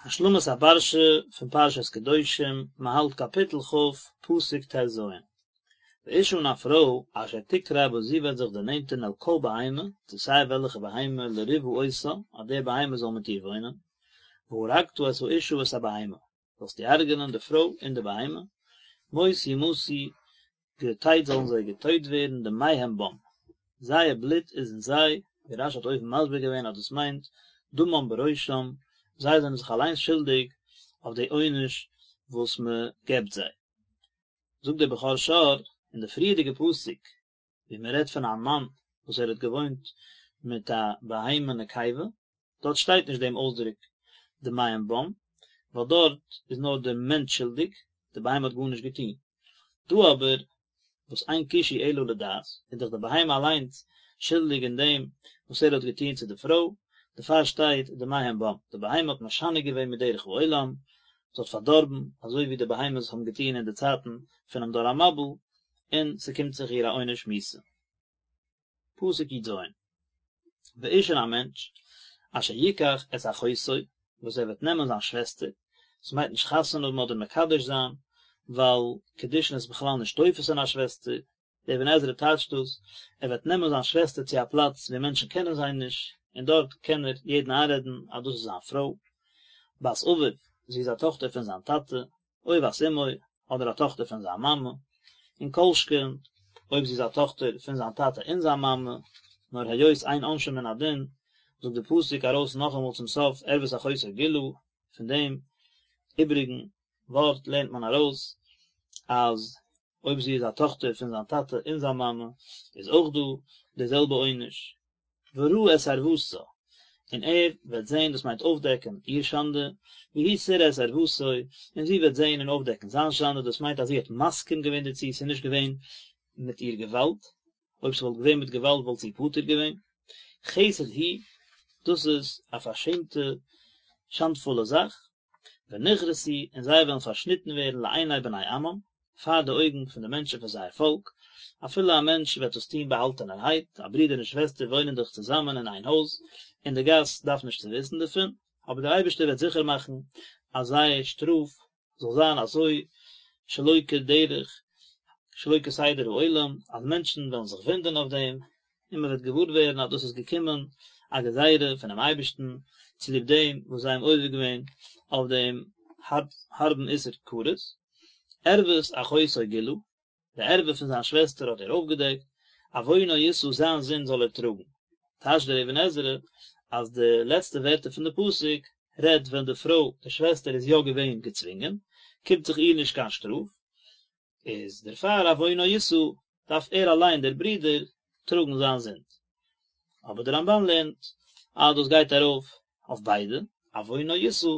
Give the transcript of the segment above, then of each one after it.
השלמת הפרשה פון פרשת קדושים, מען האלט קאפיטל כ', פסוק ט"ז. ואשה און א פרוי, אשר תקרב וואס זי וועט זיך דערנענטערן אל כל בהמה, צו סיי וועלכע בהמה, לריבה אותה, אז די בהמה זאל מיט איר וואוינען, והרגת את האשה ואת הבהמה, זאלסטו הרג'נען די פרוי און די בהמה, מות יומתו, געטייט זאלן זיי געטויט ווערן דמיהם בם, זייער בלוט איז אין זיי, ווי רש"י האט אויבן מסביר געווען אז דאס מיינט דמם בראשם, זיי זענען זיך אליינס שולדיג אויף די עונש וואס מען געבט זיי. זאגט דער בכור שור אין די פריערדיגע פסוק ווי מען רעדט פון א מאן וואס ער האט געוואוינט מיט א בהמה נקבה, דארט שטייט נישט דעם אויסדרוק דמיהם בם, ווייל דארט איז נאר דער מענטש שולדיג, די בהמה האט גארנישט געטון. דא אבער, וואס אין קישוי אלא לדעת, איז דאך די בהמה אליינס שולדיג אין דעם וואס ער האט געטון צו די פרוי, דערפאר שטייט דמיהם בם, די בהמה האט משנה געווען מדרך העולם, זי האט פארדארבן, אזוי ווי די בהמות האבן געטון אין די צייטן פונעם דור המבול, און ס'קומט זיך איר א עונש מיתה. פסוק י"ז, ואיש און א מענטש, אשר יקח את אחותו, וואס ער וועט נעמען זיין שוועסטער, עס מיינט נישט חתונה האבן אדער מקדש זיין, ווייל קידושין איז בכלל נישט תופס אין א שוועסטער, דער אבן עזרא טייטשט דאס, ער וועט נעמען זיין שוועסטער צו א פלאץ וואו מענטשן קענען זיי נישט, און דארט קען ער יעדן איינרעדן אז דאס איז זיין פרוי, בת אביו, זי איז א טאכטער פון זיין טאטע, או בת אמו, אדער א טאכטער פון זיין מאמע, און כל שכן אויב זי איז א טאכטער פון זיין טאטע און זיין מאמע, נאר היות אין עונשין מן הדין, זאגט די פסוק ארויס נאכאמאל צום סוף ערות אחותו גלה, פון דעם איבריגן ווארט לערנט מען ארויס אז אויב זי איז א טאכטער פון זיין טאטע און זיין מאמע איז אויך דא די זעלבע עונש. וראה את ערותה, און ער וועט זען, דאס מיינט אויפדעקן, איר שאנדע, והיא תראה את ערותו, און זי וועט זען און אויפדעקן זיין שאנדע, דאס מיינט אז זי האט מסכים געווען דערצו, ס'איז נישט געווען מיט איר געוואלד, אויב ס'וואלט געווען מיט געוואלד וואלט זי פטור געווען. חסד הוא, דאס איז א פארשעמטע, שאנדפולע זאך, ונכרתו, און זיי וועלן פארשניטן ווערן לעיני בני עמם, פאר די אויגן פון די מענטשן פון זייער פאלק, אפילו א מענטש וועט דאס טון באהאלטענערהייט, א ברודער און שוועסטער וואוינען דאך צוזאמען אין איין הויז, און די גאס דארף נישט צו וויסן דערפון, אבער דער אייבערשטער וועט זיכער מאכן אז זייער שטראף זאל זיין אזוי שלא כדרך שלא כסדר העולם, אז מענטשן וועלן זיך וואונדערן אויף דעם, און מען וועט געוואר ווערן אז דאס איז געקומען א גזירה פונעם אייבערשטן צוליב דעם וואס זיי האבן עובר געווען אויף דעם הארבן איסור כרת, ערות אחותו גילה, די ערווה פון זיין שוועסטער האט ער אויפגעדעקט, עוונו ישא זיין זינד זאל ער טראגן. טייטשט דער אבן עזרא אז די לעצטע ווערטער פון די פסוק רעדט ווען די פרוי, די שוועסטער איז יא געווען געצווינגען, קומט זיך איר נישט קיין שטראף, איז דערפאר עוונו ישא, דארף ער אליין דער ברודער טראגן זיין זינד. אבער דער רמב"ן לערנט אז דאס גייט ארויף אויף ביידע, עוונו ישא,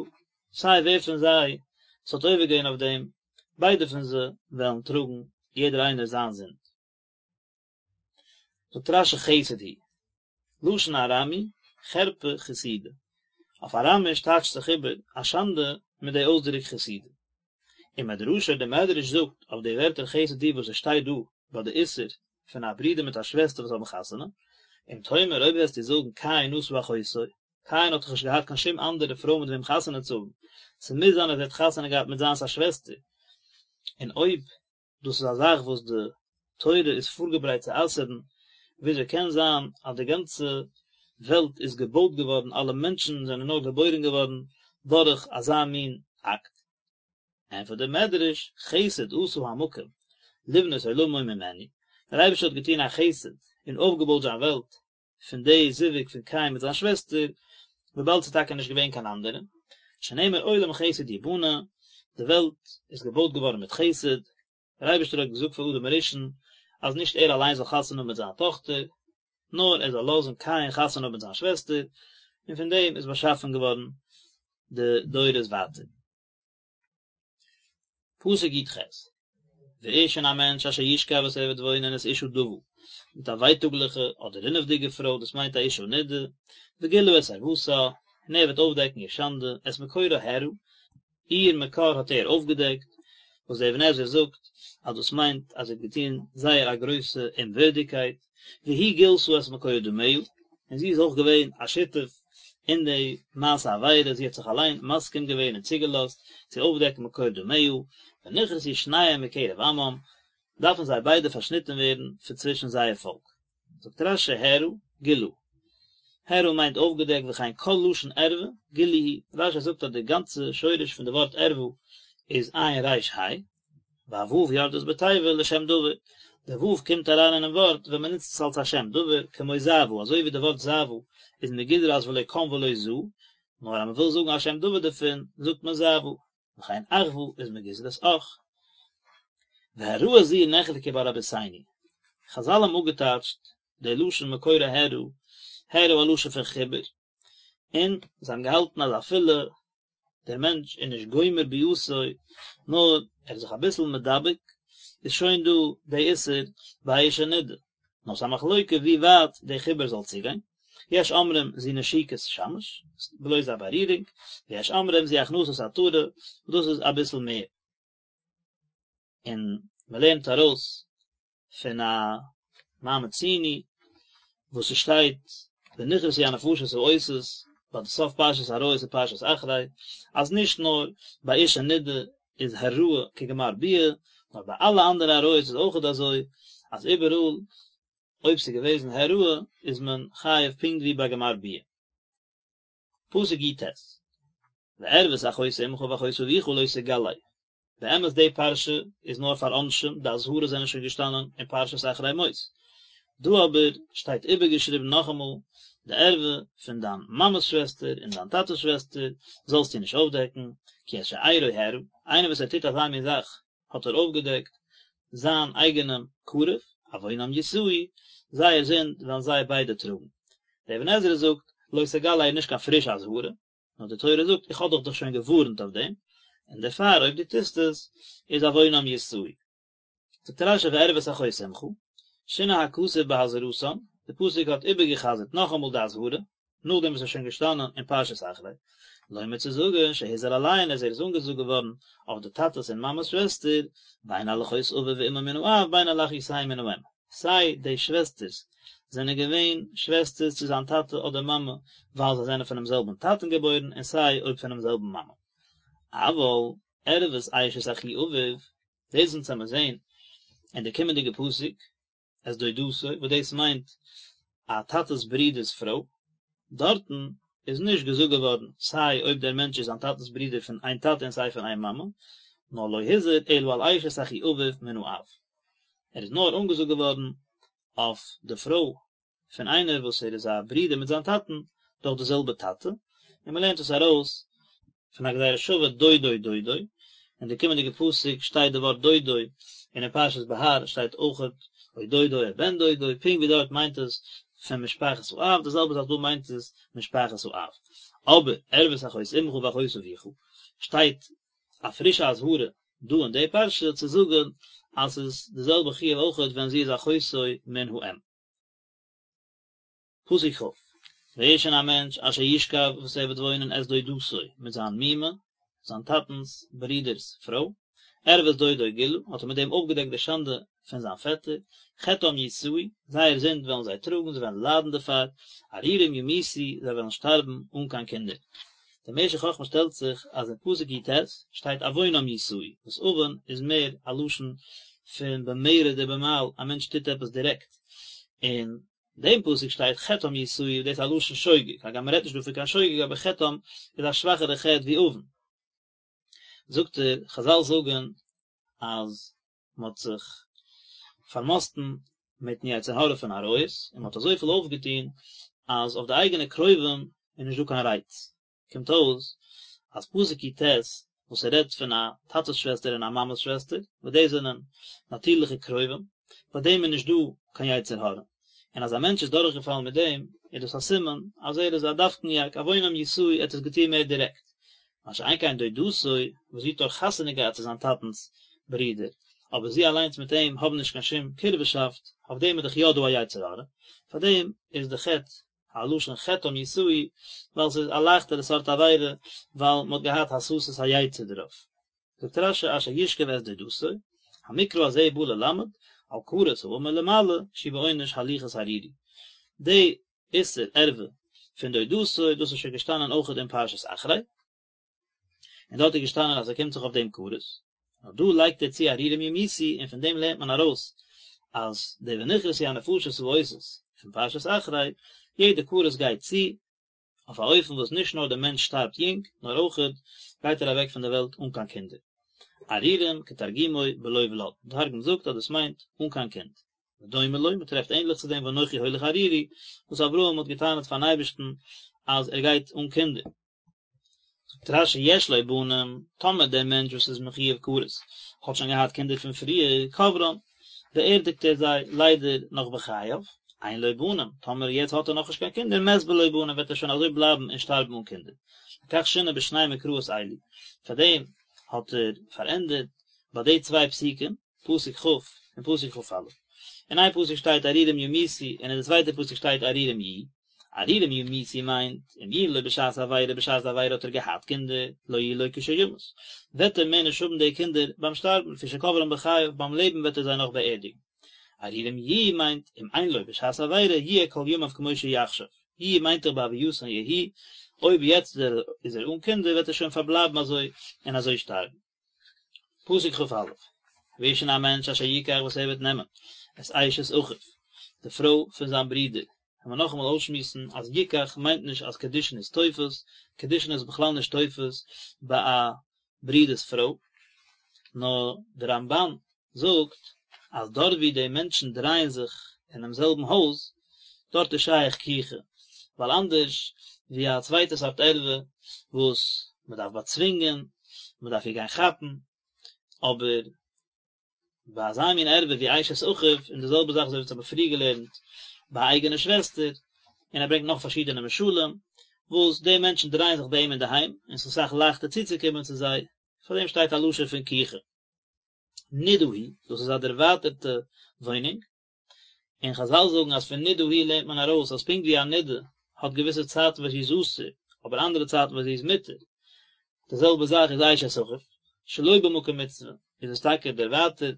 סיי ווער פון זיי ס'האט עובר געווען אויף דעם, ביידע פון זיי וועלן טראגן יעדער איינער זיין זינד. זאגט רש"י חסד הוא, לשון ארמי, חרפה חסידה. אויף אראמיש טייטשט זיך איבער א שאנדע מיט די אויסדרוק חסידה. ומדרשו דער מדרש זאגט אויף די ווערטער חסד הוא וואס עס שטייט דא ביי די איסור פון א ברודער מיט א שוועסטער וואס האבן חתונה, אם תאמר אויב וועסטו זאגן קין נשא אחותו, קין האט דאך נישט געהאט קיין שום אנדערע פרוי מיט וועם חתונה צו האבן, ס'מוז זיין אז ער האט חתונה געהאט מיט זיינס א שוועסטער, און אויב דאס איז א זאך וואס די תורה איז פארגעברייט צו אסר'ן, וויאזוי קען זיין אז די גאנצע וועלט איז געבויט געווארן, אלע מענטשן זענען נאר געבוירן געווארן דורך אזא מין אקט? ענטפערט דער מדרש, חסד עשה המקום לבנות עולמו ממנו, דער אייבערשטער האט געטון א חסד און אויפגעבויט זיין וועלט פון די זיווג פון קין מיט זיין שוועסטער, וויבאלד ס'איז טאקע נישט געווען קיין אנדערע, שנאמר עולם חסד יבנה, די וועלט איז געבויט געווארן מיט חסד, דער אייבערשטער האט געזאגט פאר אדם הראשון אז נישט ער אליין זאל חתונה האבן מיט זיין טאכטער, נאר ער זאל לאזן קין חתונה האבן מיט זיין שוועסטער, און פון דעם איז באשאפן געווארן די דורות ווייטער. פסוק י"ח, ואיש און א מענטש אשר ישכב וואס ער וועט וואוינען את אשה דוה, מיט א ווייטאגליכע אדער רינעוודיגע פרוי, דאס מיינט א אשה נידה, וגילה את ערותה, און ער וועט אויפדעקן איר שאנדע, את מקורה הערה, איר מקור האט ער אויפגעדעקט, וואס דער אבן עזרא זאגט אז דאס מיינט אז ער האט געטון זייער א גרויסע אומווערדיגקייט, והיא גילתה את מקור דמיה, און זי איז אויך געווען א שותף. אין די מעשה עבירה, זי האט זיך אליין מסכים געווען און צוגעלאזט צו אויפדעקן מקור דמיה, ונכרתו שניהם מקרב עמם, דארפן זיי ביידע פארשניטן ווערן פון צווישן זייער פאלק. זאגט רש"י הערה, גילה. הערה מיינט אויפגעדעקט וכן כל לשון ערווה, גילוי הוא. רש"י זאגט אז די גאנצע שורש פון די ווארט ערווה איז עין ריש ה', והו' יורדת בתיבה לשם דבר, די ו' קומט אריין אינעם ווארט ווען מען נוצט עס אלס א שם דבר, כמו זעוה, אזוי ווי די ווארט זעוה איז מגזרת ולא קם ולא זע, נאר אז מען וויל זאגן א שם דבר דערפון, זאגט מען זעוה. וכן אחוה איז מגזרת אח. והעראה זו נחלקו בה רבותינו. חזל האבן אפגעטייטשט די לשון מקורה העראה, העראה א לשון פון חיבור, און זיי האבן געהאלטן אז אפילו דער מענטש איז נישט גומר ביאתו, נאר ער איז זיך אביסל מדבק, איז שוין דא די איסור ביי אשה נידה. נאר ס'איז א מחלוקה ווי ווייט די חיבור זאל צוגיין, יש אומרים זו נשיקת שמש, בלויז א בארירונג, ויש אומרים זו הכנסת עטרה, וואס דאס איז אביסל מער. און מ'לערנט ארויס פון א מה מצינו וואס ס'שטייט ונכרתו הנפשות העושות ביי די סוף פרשת עריות און פרשת אחרי, אז נישט נאר ביי אשה נידה איז העראה כגמר ביאה, נאר ביי אלע אנדערע עריות איז אויכעט אזוי, אז איבעראל אויב ס'איז געוועזן העראה איז מען חייב פונקט ווי ביי גמר ביאה. פסוק י"ט, וערות אחות אמך ואחות אביך לא תגלה, באמת די פרשה איז נאר פאר עונשים, די אזהרות זענען שוין געשטאנען אין פרשת אחרי מות, דא אבער שטייט איבערגעשריבן נאכאמאל, די ערווה פון דיין מאמע'ס שוועסטער און דיין טאטע'ס שוועסטער זאלסטו נישט אויפדעקן, כי את שארו הערה, איינער וואס ער טוט אזא מין זאך האט ער אויפגעדעקט זיין אייגענעם קרוב, עוונם ישאו, זייער זינד וועלן זיי ביידע טראגן. דער אבן עזרא זאגט, לא תגלה איז נישט קיין פרישע אזהרה, נאר די תורה זאגט איך האב דיך דאך שוין געווארנט אויף דעם, און דערפאר אויב דו טוסט עס, איז עוונם ישאו. זאגט רש"י וערות אחות אמך, שינה הכתוב בהזהרתן, די פסוק האט איבערגע'חזר'ט נאכאמאל די אזהרה, נאכדעם וואס עס איז שוין געשטאנען אין פרשת אחרי, לומר צו זאגן שהוזהר עליהן אז ער איז אנגעזאגט געווארן אויף די טאטעס און מאמעס שוועסטער, בין על אחות אביו ואמו מן האב בין על אחיותיהם מן האם. סיי די שוועסטערס זענען געווען שוועסטערס צו זיין טאטע אדער מאמע ווייל זיי זענען פונעם זעלבן טאטן געבוירן און סיי אויב פונעם זעלבן מאמע. אבל ערות אשת אחי אביו, דאס אונז וועמיר זעהן אין די קומענדיגע פסוק, את דודתו, וואס דאס מיינט א טאטע'ס ברודער'ס פרוי, דארטן איז נישט געזאגט געווארן סיי אויב דער מענטש איז זיין טאטע'ס ברודער פון איין טאטע און סיי פון איין מאמע, נאר לא הוזהר אלא על אשת אחי אביו מן האב, ער איז נאר אנגעזאגט געווארן אויף די פרוי פון איינער וואס ער איז א ברודער מיט זיין טאטן דורך די זעלבע טאטע, און מען לערנט עס ארויס פון א גזירה שווה דודו דודו, אין די קומענדיגע פסוק שטייט די ווארט דודו, און אין פרשת בהר שטייט אויכעט או דודו או בן דודו, פונקט ווי דארט מיינט עס פון משפחת האב, די זעלבע זאך דא מיינט עס משפחת האב. אבער ערות אחות אמך ואחות אביך שטייט א פרישע אזהרה דא אין די פרשה צו זאגן אז ס'איז די זעלבע חיוב אויכעט ווען זי איז אחותו מן האם. פסוק כ', ואיש און א מענטש אשר ישכב וואס ער וועט וואוינען את דודתו מיט זיין מומע, זיין טאטנ'ס ברודער'ס פרוי, ערות דודו גילה, האט ער מיט דעם אויפגעדעקט די שאנדע פון זיין פעטער, חטאם ישאו, זייער זינד וועלן זיי טראגן, זיי וועלן ליידן דערפאר, ערירים ימותו, זיי וועלן שטארבן אן קיין קינדער. דער משך חכמה שטעלט זיך אז אין פסוק י"ט שטייט עוונם ישאו, וואס עוון איז מער א לשון פון במרד ובמעל, א מענטש טוט עפעס דירעקט, אין דעם פסוק שטייט חטאם ישאו, דאס איז א לשון שוגג, הגם מען רעדט נישט דא פון קיין שוגג אבער חטאם איז א שוואכערע חטא ווי עוון. זאגט ער, חזל זאגן אז מען האט זיך פארמאסטן מיטן יצר הרע פון עריות, און מען האט אזויפיל אויפגעטון אז אויף די אייגענע קרובים איז נישט דא קיין רייץ. קומט אויס אז פסוק י"ט וואס ער רעדט פון א טאטע'ס שוועסטער און א מאמע'ס שוועסטער, וואס דאס זענען נאטירליכע קרובים, ביי דעם איז נישט דא קיין יצר הרע, און אז א מענטש איז דורכגעפאלן מיט דעם, איז דאס א סימן אז ער איז א דווקניאק, עוונם ישאו, ער האט עס געטון מער דירעקט. מה שאין כן דודתו, וואס זי האט דאך חתונה געהאט צו זיין טאטנ'ס ברודער, אבער זי אליינס מיט אים האבן נישט קיין שום קירבה'שאפט, אויף דעם איז דאך יא דא א יצר הרע, פאר דעם איז די חטא א לשון חטאם ישאו, ווייל ס'איז א לייכטערע סארט עבירה, ווייל מ'האט געהאט הסתת היצר דערויף. זאגט רש"י אשר ישכב את דודתו, המקרא הזה בא ללמד, על כרת האמור למעלה, שהוא בעונש הליכת ערירי. די איסור ערווה. פון דודתו, דאס איז שוין געשטאנען אויכעט אין פרשת אחרי, און דארט איז געשטאנען אז עס קומט זיך אויף דעם כרת, נאר דא לייגט ער צו ערירים ימותו און פון דעם לערנט מען ארויס אז די ונכרתו הנפשות העושות פון פרשת אחרי, יעדע כרת גייט צו אויף א אופן וואס נישט נאר דער מענטש שטארבט יונג, נאר אויכעט גייט ער אוועק פון דער וועלט אן קיין קינדער. ערירים כתרגומו בלא ולד, די תרגום זאגט אז דאס מיינט אן קיין קינד. ודומה לו, מען טרעפט ענדליך צו דעם ואנכי הולך ערירי, וואס אברהם האט געטענה'ט פארן אייבערשטן אז ער גייט אן קינדער. זאגט רש"י יש לו בנים, טאמער דער מענטש וואס איז מחויב כרת האט שוין געהאט קינדער פון פריער, קוברן, באערדיגט ער זיי ליידער נאך בחייו, אין לו בנים, טאמער יעצט האט ער נאכנישט קיין קינדער, מת בלא בנים וועט ער שוין אזוי בלייבן און שטארבן אן קינדער. לכך שינה בשני מקראות אלו, פארדעם האט ער פארענדערט ביי די צוויי פסוקים, פסוק כ' און פסוק כ"א. אין איין פסוק שטייט ערירים ימותו און אין די צווייטע פסוק שטייט ערירים יהיו. ערירים ימותו מיינט, אם יהיו לו בשעת עבירה בשעת די עבירה האט ער געהאט קינדער, לא יהיו לו כשימות. וועט ער מער נישט האבן די קינדער ביים שטארבן, לפי שקוברן בחייו, ביים לעבן וועט ער זיי נאך באערדיגן. ערירים יהיו מיינט, אם אין לו בשעת עבירה, יהיה כל ימיו כמו שהוא עכשיו. יהיו מיינט דאך בהווייתן יהיו, אויב יעצט איז ער אן קינדער וועט ער שוין פארבלייבן אזוי און אזוי שטארבן. פסוק כ"א, ואיש און א מענטש אשר יקח וואס ער וועט נעמען את אשת אחיו, די פרוי פון זיין ברודער, וועלן מיר נאכאמאל אויסשמועסן אז יקח מיינט נישט אז קידושין איז תופס, קידושין איז בכלל נישט תופס ביי א ברודער'ס פרוי, נאר די רמב"ן זאגט אז דארט ווי די מענטשן דרייען זיך אינעם זעלבן הויז, דארט איז שייך קיחה, ווייל אנדערש ווי א צווייטע סארט ערווה וואס מען דארף באצווינגען, מען דארף איר גיין כאפן, אבער ביי אזא מין ערווה ווי אשת אחיו, און די זעלבע זאך אזוי ווי אונז האבן פריער געלערנט ביי א אייגענע שוועסטער, און ער ברענגט נאך פארשידענע משלים, וואס די מענטשן דרייען זיך ביי אים אינדערהיים, און ס'איז אסאך לייכטער צוצוקומען צו זיי, פאר דעם שטייט א לשון פון קיחה. נידה היא, דאס איז א דערווייטערטע וואוינונג, און חזל זאגן אז פון נידה היא לערנט מען ארויס אז פונקט ווי א נידה האט געוויסע צייטן וואס זי איז אסור, אבער אנדערע צייטן וואס זי איז מותר, די זעלבע זאך איז אשת אחיו, שלא במקום מצוה איז עס טאקע דערווייטערט,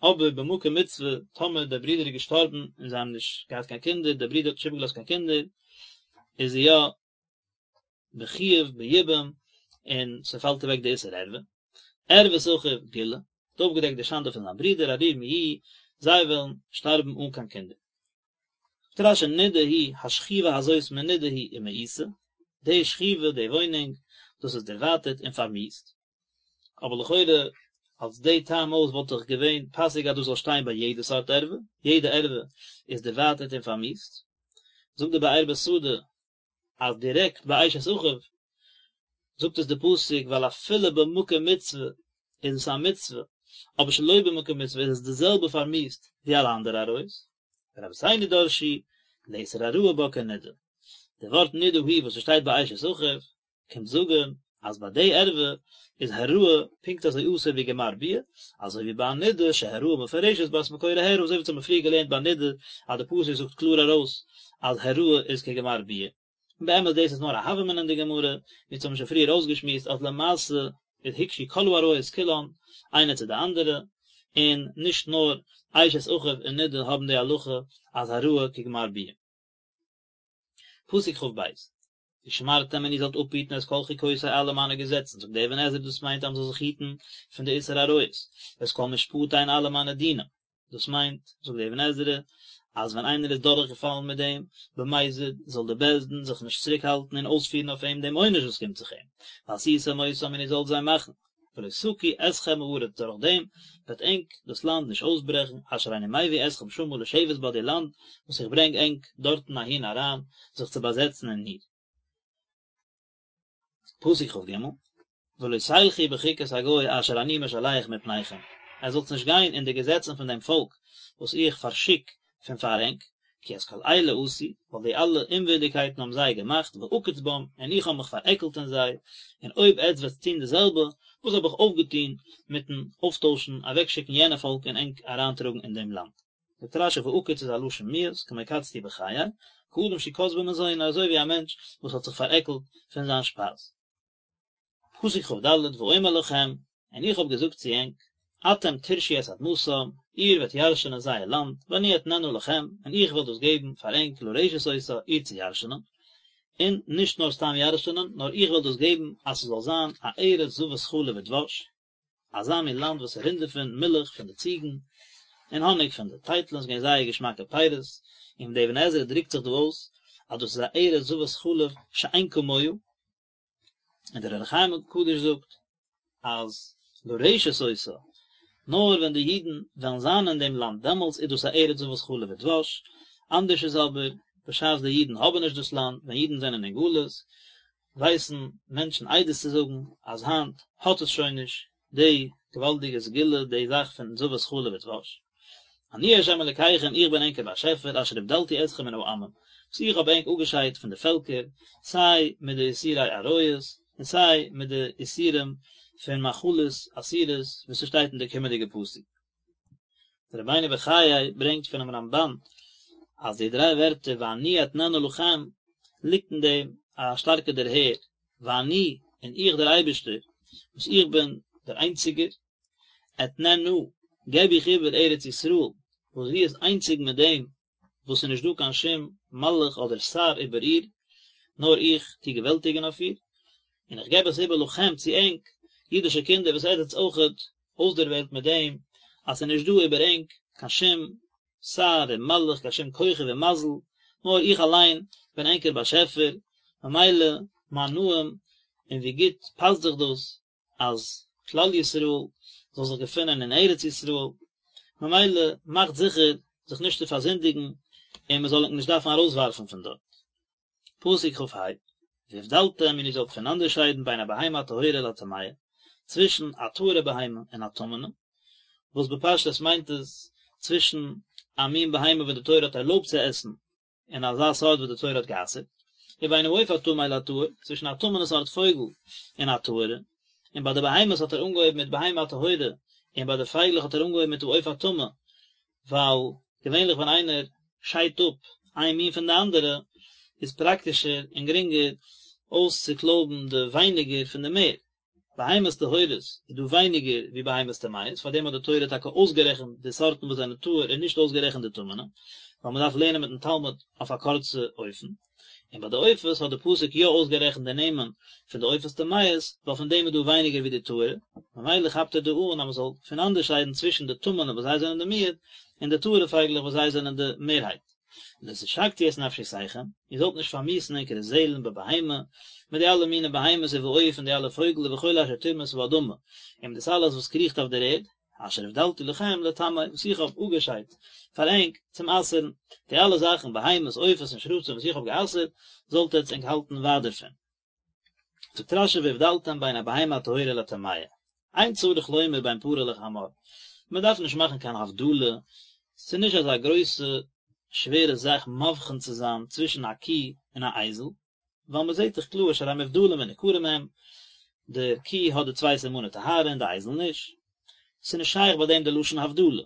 אבער במקום מצוה, טאמער דער ברודער איז געשטארבן און זיי האבן נישט געהאט קיין קינדער, דער ברודער האט נישט איבערגעלאזט קיין קינדער, איז זי יא בחיוב ביבום און ס'פאלט אוועק די איסור ערווה. ערות אחיו גילה, האט אויפגעדעקט די שאנדע פון זיין ברודער ערירים יהיו, זיי וועלן שטארבן אן קיין קינדער. זאגט רש"י נידה היא, השכיבה הזאת מנודה היא ומאוסה, די שכיבה, די וואוינונג, דאס איז דערווייטערט און פארמיאוסט. אבער לכאורה אלס די טעם אויס וואלט דאך געווען פאסיג אז דאס זאל שטיין ביי יעדע סארט ערווה, יעדע ערווה איז דערווייטערט און פארמיאוסט. זאגט די באר בשדה אז דירעקט ביי אשת אחיו זאגט עס די פסוק ווייל אפילו במקום מצוה איז עס א מצוה, אבער שלא במקום מצוה איז עס די זעלבע פארמיאוסט ווי אלע אנדערע עריות. ורבותינו דרשו לאיסור העראה בה כנידה. די ווארט נידה היא וואס עס שטייט ביי אשת אחיו קומט זאגן אז ביי די ערווה איז העראה פונקט אזוי אסור ווי גמר ביאה, אזוי ווי ביי א נידה שהעראה מפורשת בה את מקורה הערה, אזוי ווי אונז האבן פריער געלערנט ביי נידה אז די פסוק זאגט קלאר ארויס אז העראה איז כגמר ביאה. און באמת דאס איז נאר א הוה אמינא אין די גמרא, ווי אונז האבן שוין פריער אויסגעשמועסט אז למעשה איז הוקשו כל העריות כולן איינע צו די אנדערע, און נישט נאר אשת אחיו און נידה האבן די הלכה אז העראה כגמר ביאה. פסוק כ"ב, ושמרתם און איר זאלט אפהיטן את כל חוקותי אלע מיינע געזעצן, זאגט דער אבן עזרא דאס מיינט אז מען זאל זיך היטן פון די איסור עריות, ואת כל משפטי און אלע מיינע דינים, דאס מיינט, זאגט דער אבן עזרא, אז ווען איינער איז דורכגעפאלן מיט דעם במזיד, זאל דער בית דין זיך נישט צוריקהאלטן און אויספירן אויף אים דעם עונש וואס קומט זיך אים, ועשיתם אותם און איר זאלט זיי מאכן. ולא תקיא אתכם הארץ דורך דעם וועט ענק דאס לאנד נישט אויסברעכן, אשר אני מביא אתכם שמה לשבת בה די לאנד וואס איך ברענג ענק דארטן אהין אריין זיך צו באזעצן אין איר. פסוק כ"ג, ולא תלכו בחוקת הגוי אשר אני משלח מפניכם, עטס זאלטס נישט גיין אין די געזעצן פון דעם פאלק וואס איך פארשיק פון פאר ענק, כי את כל אלה עשו, ווייל די אלע אומווירדיגקייטן האבן זיי געמאכט, ואקוץ בם, און איך האב מיך פארעקלט אין זיי, און אויב עטץ וועטס טון די זעלבע, וואס האב איך אויפגעטון מיטן אויפטוישן, אוועקשיקן יענע פאלק און ענק אריינטראגן אין דעם לאנד? זאגט רש"י ואקוץ איז א לשון מיאוס, כמו קצתי בחיי, כאדם שקץ במזונו, אזוי ווי א מענטש וואס האט זיך פארעקלט פון זיין שפייז. פסוק כ"ד, ואומר לכם, און איך האב געזאגט צו ענק, אתם תירשו את אדמתם, איר וועט ירשענען זייער לאנד, ואני אתננה לכם, און איך וועל דאס געבן פאר ענק לרשת אותה, איר צו ירשענען. און נישט נאר סתם ירש'נען, נאר איך וועל דאס געבן אז ס'זאל זיין א ארץ זבת חלב ודבש, אזא מין לאנד וואס ס'רינט דערפון מילך פון די ציגן, און האניג פון די טייטלען, ס'איז געווען זייער געשמאקע פירות, און די אבן עזרא דרוקט זיך דא אויס אז דאס איז א ארץ זבת חלב שאין כמוה, און דער אור החיים הקדוש זאגט אז לרשת אותה, נאר ווען די אידן וועלן זיין אין דעם לאנד דעמאלטס איז דאס א ארץ זבת חלב ודבש, אנדערש איז אבער בשעת די אידן האבן נישט דאס לאנד, ווען אידן זענען אין גלות, ווייסן מענטשן עדות צו זאגן אז היינט האט עס שוין נישט די געוואלדיגע סגולה, די זאך פון זבת חלב ודבש. אני ה' אלקיכם איך בין ענקער באשעפער אשר הבדלתי אתכם מן העמים, וואס איך האב ענק אפגעשיידט פון די פעלקער, סיי מיט די איסורי עריות, און סיי מיט די איסורים פון מאכלות אסורות וואס ס'שטייט אין די קומענדיגע פסוק. דער רבינו בחיי ברענגט פונעם רמב"ן אז די דריי ווערטער ואני אתננה לכם ליגט אין דעם א שטארקע דערהער, ואני, און איך דער אייבערשטער, וואס איך בין דער איינציגער, אתננה, געב איך איבער ארץ ישראל, וואס זי איז איינציג מיט דעם וואס ס'איז נישט דא קיין שום מלאך אדער שר איבער איר, נאר איך טו געוועלטיגן אויף איר, און איך געב עס איבער לכם צו ענק, אידישע קינדער וואס עטס זענטס אויכעט אויסדערוועלט מיט דעם אז ס'איז נישט דא איבער ענק קיין שום שר און מלאך, קיין שום כוכב און מזל, נאר איך אליין בין ענקער באשעפער, ממילא מה נעים און ווי גוט פאסט זיך דאס אז כלל ישראל זאל זיך געפינען אין ארץ ישראל, ממילא מאכט זיכער זיך נישט צו פארזינדיגן און מען זאל ענק נישט דארפן ארויסווארפן פון דארט. פסוק כ"ה, והבדלתם און איר זאלט פונאנדערשיידן בין הבהמה הטהורה לטמאה, צווישן א טהור'ע בהמה און א טמא'נע, וואס בפשטות מיינט עס צווישן א מין בהמה וואס די תורה האט ערלויבט צו עסן און אזא סארט וואס די תורה האט גע'אסר'ט, ובין העוף הטמא לטהור, צווישן א טמא'נע סארט פויגל און א טהור'ע, און ביי די בהמות האט ער אנגעהויבן מיט בהמה הטהורה, און ביי די פייגלעך האט ער אנגעהויבן מיט העוף הטמא, ווייל געווענליך ווען איינער שיידט אפ איין מין פון די אנדערע, איז פראקטישער און גרינגער אויסצוקלויבן די ווייניגער פון די מער. בהמות טהורות איז דא ווייניגער ווי בהמות טמאות, פאר דעם האט די תורה טאקע אויסגערעכנט די סארטן וואס זענען טהור און נישט אויסגערעכנט די טמא'נע, ווייל מען דארף לערנען מיטן תלמיד אויף א קורצע אופן. און ביי די עופות האט די פסוק יא אויסגערעכנט די נעמען פון די עופות טמאות, ווייל פון דעם איז דא ווייניגער ווי די טהור'ע, ממילא כאפט ער דא אן אז מען זאל פונאנדערשיידן צווישן די טמא'נע וואס זיי זענען די מיעוט, און די טהור'ע פייגלעך וואס זיי זענען די מערהייט. לא תשקצו את נפשותיכם, איר זאלט נישט פארמיאוס'ן ענקערע זעלן בבהמה, מיט די אלע מיני בהמות ובעוף און די אלע פויגל ובכל אשר תרמוש האדמה, און מיט דאס אלעס וואס קריכט אויף דער ערד, אשר הבדלתי לכם לטמא, וואס איך האב אפגעשיידט פאר ענק צום אסר'ן, די אלע זאכן, בהמות, עופות און שרצים וואס איך האב גע'אסר'ט, זאלט עטץ ענק האלטן ווייט דערפון. זאגט רש"י והבדלתם בין הבהמה הטהורה לטמאה, אין צריך לומר בין פרה לחמור, מען דארף נישט מאכן קיין הבדלה, ס'איז נישט אזא גרויסע שווערע זאך מבחין צו זיין צווישן א קי און א אייזל, ווייל מען זעט דאך קלאר שהרי מובדלים וניכרים הם, די קי האט די צוויי סימני טהרה און די אייזל נישט, ס'איז נישט שייך ביי דעם די לשון הבדלה,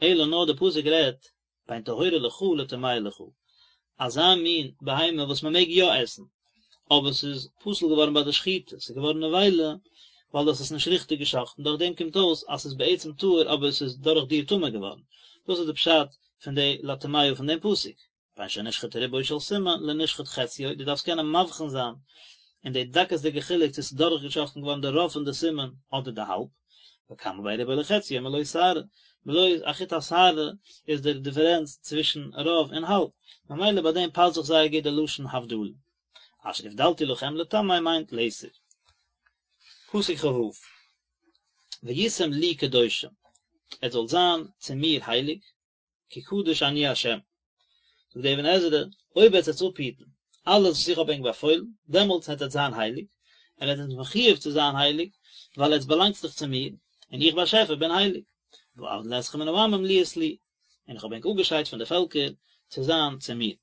אלא נאר די פסוק רעדט בין טהורה לך לטמאה לך, אזא מין בהמה וואס מען מעג יא עסן, אבער ס'איז פסול געווארן ביי די שחיטה, ס'איז געווארן נבילה ווייל דו האסט עס נישט ריכטיג געשחט'ן, דורך דעם קומט אויס אז ס'איז בעצם טהור אבער ס'איז דורך דיר טמא געווארן, דאס איז די פשט פון די לטמאה פון דעם פסוק. בין שנשחט רובו של סימן לנשחט חציו, דו דארפסט קענען מבחין זיין אין די דקות'דיגע חילוק צו ס'איז דורכגעשחט'ן געווארן די רוב פון די סימן אדער די האלב, וכמה בין רובו לחציו מלא שערה, בלויז א חוט השערה איז דער דיפערענץ צווישן רוב און האלב, ממילא ביי דעם פאסט זיך זייער גוט די לשון הבדלה. אשר הבדלתי לכם לטמא מיינט לאיסור. פסוק כ"ו, והייתם לי קדושים, עטס זאלט זיין צו מיר הייליג, כי קדוש אני ה'. זאגט דער אבן עזרא, אויב וועט עטס אפהיטן אלעס וואס איך האב ענק באפוילן, דעמאלטס וועט עטס זיין הייליג, און עטס זענט מחויב צו זיין הייליג, ווייל עטס באלאנגטס דאך צו מיר, און איך באשעפער בין הייליג. ואבדיל אתכם מן העמים להיות לי, און איך האב ענק אפגעשיידט פון די פעלקער צו זיין צו מיר.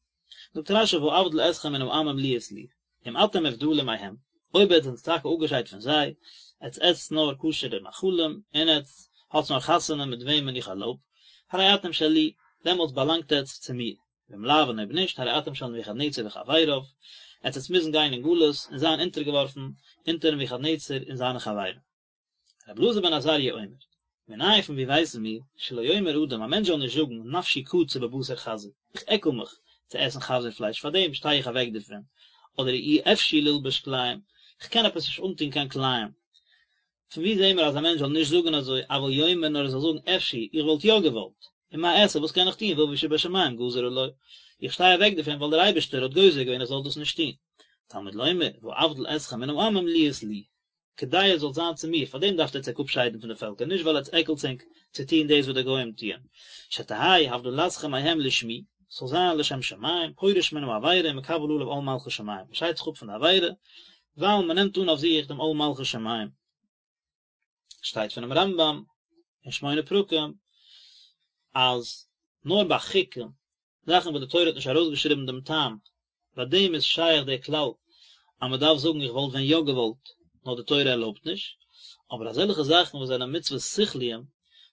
זאגט רש"י ואבדיל אתכם מן העמים להיות לי, אם אתם מובדלים מהם, אויב עטס זענטס טאקע אפגעשיידט פון זיי, עטס עסטס נאר כשר'ע מאכלים, און עטס האטס נאר חתונה מיט וועמען איך ערלויב, הרי אתם שלי, דעמאלטס באלאנגט עטס צו מיר, ואם לאו און אויב נישט, הרי אתם של נבוכדנצר וחבריו, עטס עטס מוזן גיין אין גלות און זיין אונטערגעווארפן אונטער נבוכדנצר און זיינע חברים. רבי אלעזר בן עזריה אומר, מנין פון ווי ווייסן מיר, שלא יאמר אדם, א מענטש זאל נישט זאגן, נפשי קצה בבשר חזיר, איך עקל מיך צו עסן חזיר פלייש, פאר דעם שטיי איך אוועק דערפון. אדער אי אפשי ללבוש כלאים, איך קען עפעס נישט אנטון קיין כלאים. פון וואו זעהן מיר אז א מענטש זאל נישט זאגן אזוי, אבל יאמר נאר ער זאל זאגן אפשי, איך וואלט יא געוואלט, ומה אעשה וואס קען איך טון ואבי שבשמים גזר עלי, איך שטיי אוועק דערפון ווייל דער אייבערשטער האט גוזר געווען איך זאל דאס נישט טון. תלמוד לומר, ואבדיל אתכם מן העמים להיות לי. כדי עס זאל זיין צו מיר, פאר דעם דארפט עטץ ענק אפשיידן פון די פעלקער, נישט ווייל עטץ עקלטס ענק צו טון דאס וואס די גוים טוען, שתהא הבדלתכם מהם לשמי, ס'זאל זיין לשם שמים, פורש מן העבירה ומקבל עליו עול מלכות שמים, מען שיידט זיך אפ פון די עבירה, ווייל מען נעמט אן אויף זיך דעם עול מלכות שמים. שטייט פונעם רמב"ם אין שמונה פרקים, אז נאר ביי חוקים, זאכן וואס די תורה האט נישט ארויסגעשריבן דעם טעם, ביי דעם איז שייך דער כלל אז מען דארף זאגן איך וואלט ווען יא געוואלט, נאר די תורה ערלויבט נישט, אבער אזעלכע זאכן וואס זענען מצוות שכליים,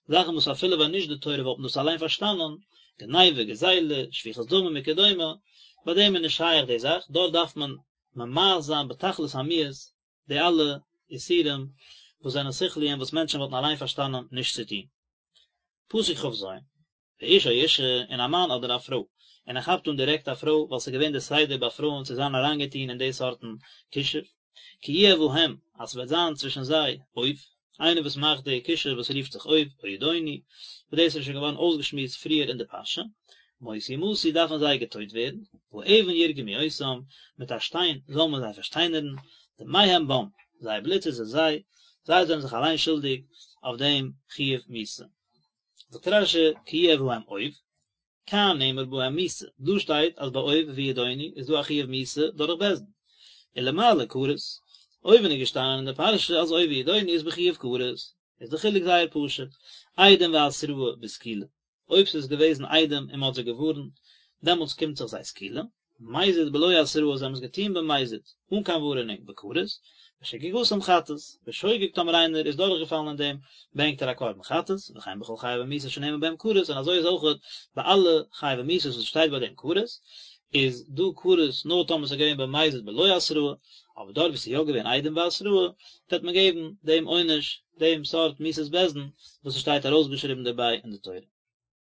זאכן וואס אפילו ווען נישט די תורה וואלט מען דאס אליין פארשטאנען, גניבה, גזילה, שפיכות דמים וכדומה, ביי דעם איז נישט שייך די זאך, דארט דארף מען ממאס זיין בתכלית המיאוס די אלע איסורים וואס זענען שכליים וואס מענטשן וואלטן אליין פארשטאנען נישט צו טון. פסוק כ"ז, ואיש או אשה, און א מאן אדער א פרוי, און ער כאפט אן דירעקט א פרוי, ווייל ס'איז געווען די סדר ביי פרויען צו זיין אריינגעטון אין די סארטן כישוף, כי יהיה בהם, אז ס'וועט זיין צווישן זיי אוב, איינער וואס מאכט די כישוף וואס רופט זיך אוב, או ידעוני, וואס דאס איז שוין געווארן אויסגעשמועסט פריער אין די פרשה, מות יומתו דארפן זיי געטויט ווערן, באבן ירגמו אותם, מיט א שטיין זאל מען זיי פארשטיינערן, דמיהם בם, זייער בלוט איז אין זיי, זיי זענען זיך אליין שולדיג אויף דעם חיוב מיתה. זאגט רש"י כי יהיה בהם אוב, כאן נאמר בהם מיתה, דא שטייט אז ביי אוב וידעוני איז דא א חיוב מיתה דורך בית דין, ולמעלה כרת, אויבן איז געשטאנען אין די פרשה אז אוב וידעוני איז בחיוב כרת, איז די חילוק זייער פשוט, עדים והתראה בסקילה, אויב ס'איז געוועזן עדים און מ'האט זיי געווארנט, דעמאלטס קומט זיך זיי סקילה, מזיד בלא התראה זיי האבן עס געטון במזיד, אן קיין ווארענונג, בכרת, ושגגתם חטאת, בשוגג טאמער איינער איז דורכגעפאלן אין דעם, ברענגט ער א קרבן חטאת, וכן בכל חייבי מיתות שנאמר בהם כרת, און אזוי איז אויכעט ביי אלע חייבי מיתות וואס שטייט ביי דעם כרת, איז דא כרת נאר טאמער ס'איז געווען במזיד בלא התראה, אבער דארט וואו ס'איז יא געווען עדים והתראה, וועט מען געבן דעם עונש, דעם סארט מיתת בית דין, וואס ס'שטייט ארויסגעשריבן דערביי אין די תורה.